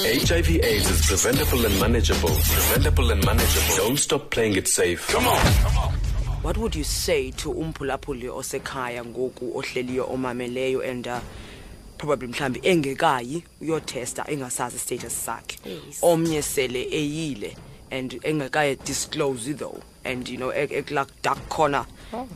HIV AIDS is preventable and manageable. Preventable and manageable. Don't stop playing it safe. Come on. What would you say to umphulaphuli osekhaya ngoku ohleliyo omameleyo and probably mhlambi engekayi uyotesta, engasazi status sakhe? Omnye sele eyile and engekaye disclose though, and ekula dark corner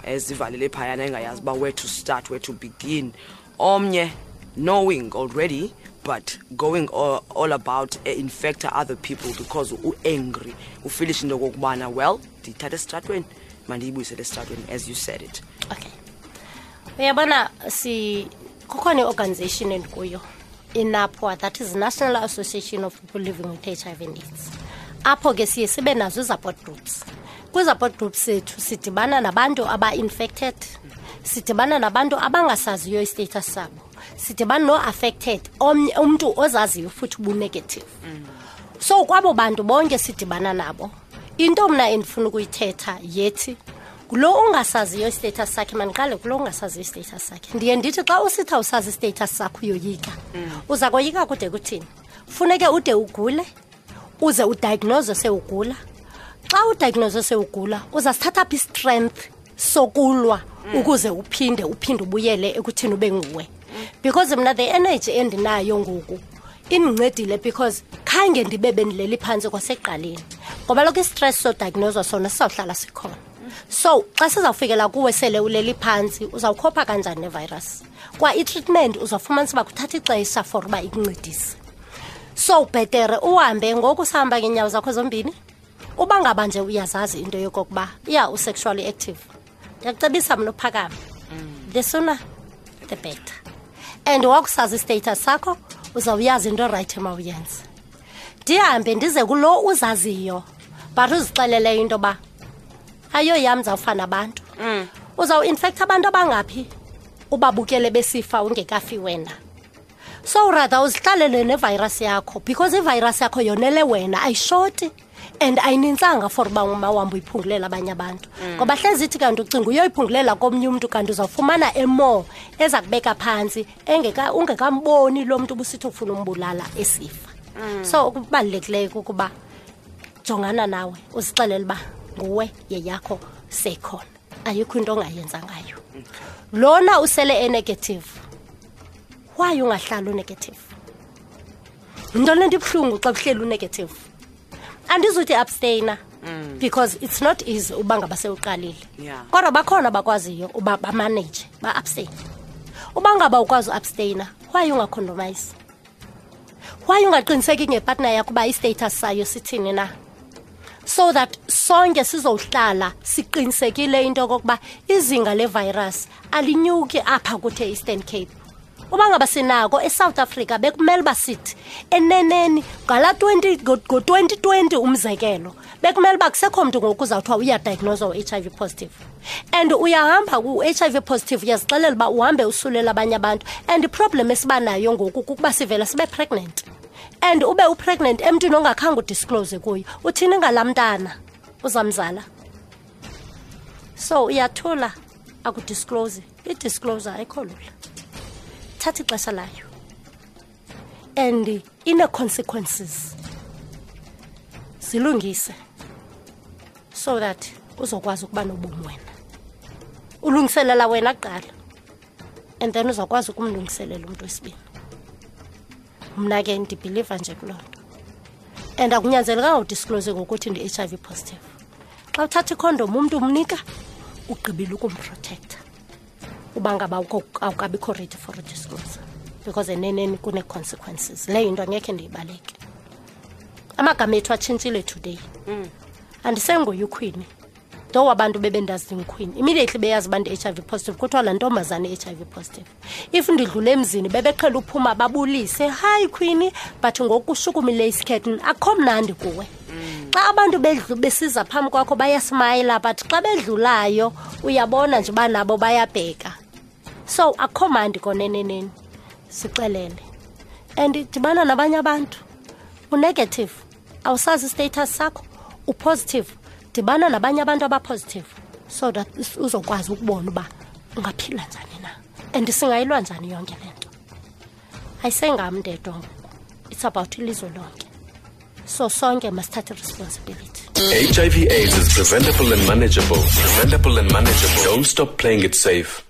ezivalele phayana, engayazi uba where to start, where to begin. Omnye knowing already but going all about infect other people because u-angry, ufeelisha into okokubana, well, ndiyithatha esitratweni, mandiyibuyisele esitratweni, as you said it. Okay, uyabona, si kukhona i-organization endikuyo, iNAPWA, that is National Association of People Living with HIV and AIDS. Apho ke siye sibe nazo i-support groups. Kwi-support groups sethu sidibana nabantu aba-infected, sidibana nabantu abangasaziyo i-status sabo, sidibana no-affected, omnye umntu ozaziyo futhi ubu-negative. So kwabo bantu bonke sidibana nabo, into mna endifuna ukuyithetha yethi kulo ungasaziyo i-status sakhe, mandiqale kulo ungasaziyo i-status sakhe. Ndiye ndithi xa usithi awusazi i-status sakho, uyoyika. Uza koyika kude kuthini? Funeke ude ugule, uze udiagnose sewugula. Xa udiagnose sewugula, uzasithatha phi i-strength sokulwa ukuze uphinde ubuyele ekuthini ube nguwe? Because mna the energy endinayo ngoku indincedile, because khange ndibe bendileli phantsi kwasekuqaleni, ngoba lokho i-stress sodiagnoswa sona sizawuhlala sikhona. So xa sizawufikela kuwe sele uleli phantsi, uzawukhopha kanjani nevirus? Kwa i-treatment uzawufumanisa uba kuthatha ixesha for uba ikuncedise. So bhetere uhambe ngoku usahamba ngeenyawo zakho zombini. Uba ngaba nje uyazazi into yokokuba iya u-sexually active, ndiyakucebisa mna uphakame. The sooner the better. And wakusazi i-status sakho, uzawuyazi into erayithi emawuyenze. Ndihambe ndize kulo uzaziyo but uzixelele into yoba ayo yam, ndizawufana nabantu. Uzawuinfektha abantu abangaphi ubabukele besifa ungekafi wena? So rather uzihlalele nevirus yakho, because ivirus yakho yonele wena, ayishoti and ayinintsanga for uba umawambe uyiphungulela abanye abantu. Ngoba hlezi ithi kanti ucinga uyoyiphungulela komnye umntu, kanti uzawufumana emore eza kubeka phantsi ungekamboni lo mntu ubusithi ufuna umbulala esifa. So okubalulekileyo kukuba jongana nawe, uzixelele uba nguwe, yeyakho seyikhona, ayikho into ongayenza ngayo. Lona usele e-negative, why ungahlali u-negative? Yinto le nto ibuhlungu xa kuhleli u-negative. Andizuthi abstainer, because it's not easy uba ngaba sewuqalile. Kodwa bakhona abakwaziyo uba bamanage, ba-abstain. Uba ngaba ukwazi uabstainer, why ungacondomize? Why ungaqiniseki ngepartner yakho uba i-status sayo sithini na, so that sonke sizohlala siqinisekile into yokokuba izinga levirus alinyuki apha kuthe Eastern Cape? Uba ngaba sinako eSouth Africa, bekumele uba sithi eneneni ngala 20 ngo-2020 umzekelo, bekumele uba kusekho mntu ngoku uzawuthiwa uyadiagnoswa u-HIV positive. And uyahamba ku-HIV positive, uyazixelela uba uhambe usulela abanye abantu. And iproblem esibanayo ngoku kukuba sivela sibe pregnant, and ube upregnant emntwini ongakhange udisclose kuyo. Uthini ngalaa mntana uzamzala? So uyathula, akudisclose. I-disclosure ayikho lula, thatha ixesha layo and ine-consequences. Zilungise so that uzokwazi ukuba nobomi wena. Ulungiselela wena kuqala and then uzawukwazi ukumlungiselela umntu wesibini. Mna ke ndibhiliva nje kuloo nto, and akunyanzelekanga udisclose ngokuthi ndi-HIV positive. Xa uthatha ikhondom umntu umnika, ugqibile ukumprotecta uba ngaba awukabikho ready for a disclosure, because eneneni kune-consequences. Leyo into angekhe ndiyibaleke. Amagama ethu atshintshile today. Andisenguye uQueenie though. Abantu bebendazi ndinguQueenie, immediately beyazi uba ndi-HIV positive, kuthiwa laa ntombazana i-HIV positive. If ndidlula emzini, bebeqhela uphuma babulise, "Hayi Queenie," but ngoku ushukumile isikhethu, akho mnandi kuwe. Xa abantu besiza phambi kwakho bayasmayila, but xa bedlulayo uyabona nje uba nabo bayabheka. So akho mandi koneneneni. Sixelele and dibana nabanye abantu. Unegative, awusazi istatus sakho, upositive, dibana nabanye abantu abapositive so that uzokwazi ukubona uba ungaphila njani na and singayilwa njani yonke le nto. Ayisengam ndedwa ngoku. It's about ilizwe lonke. So sonke masithathe responsibility. HIV AIDS is preventable and manageable. Preventable and manageable. Don't stop playing it safe.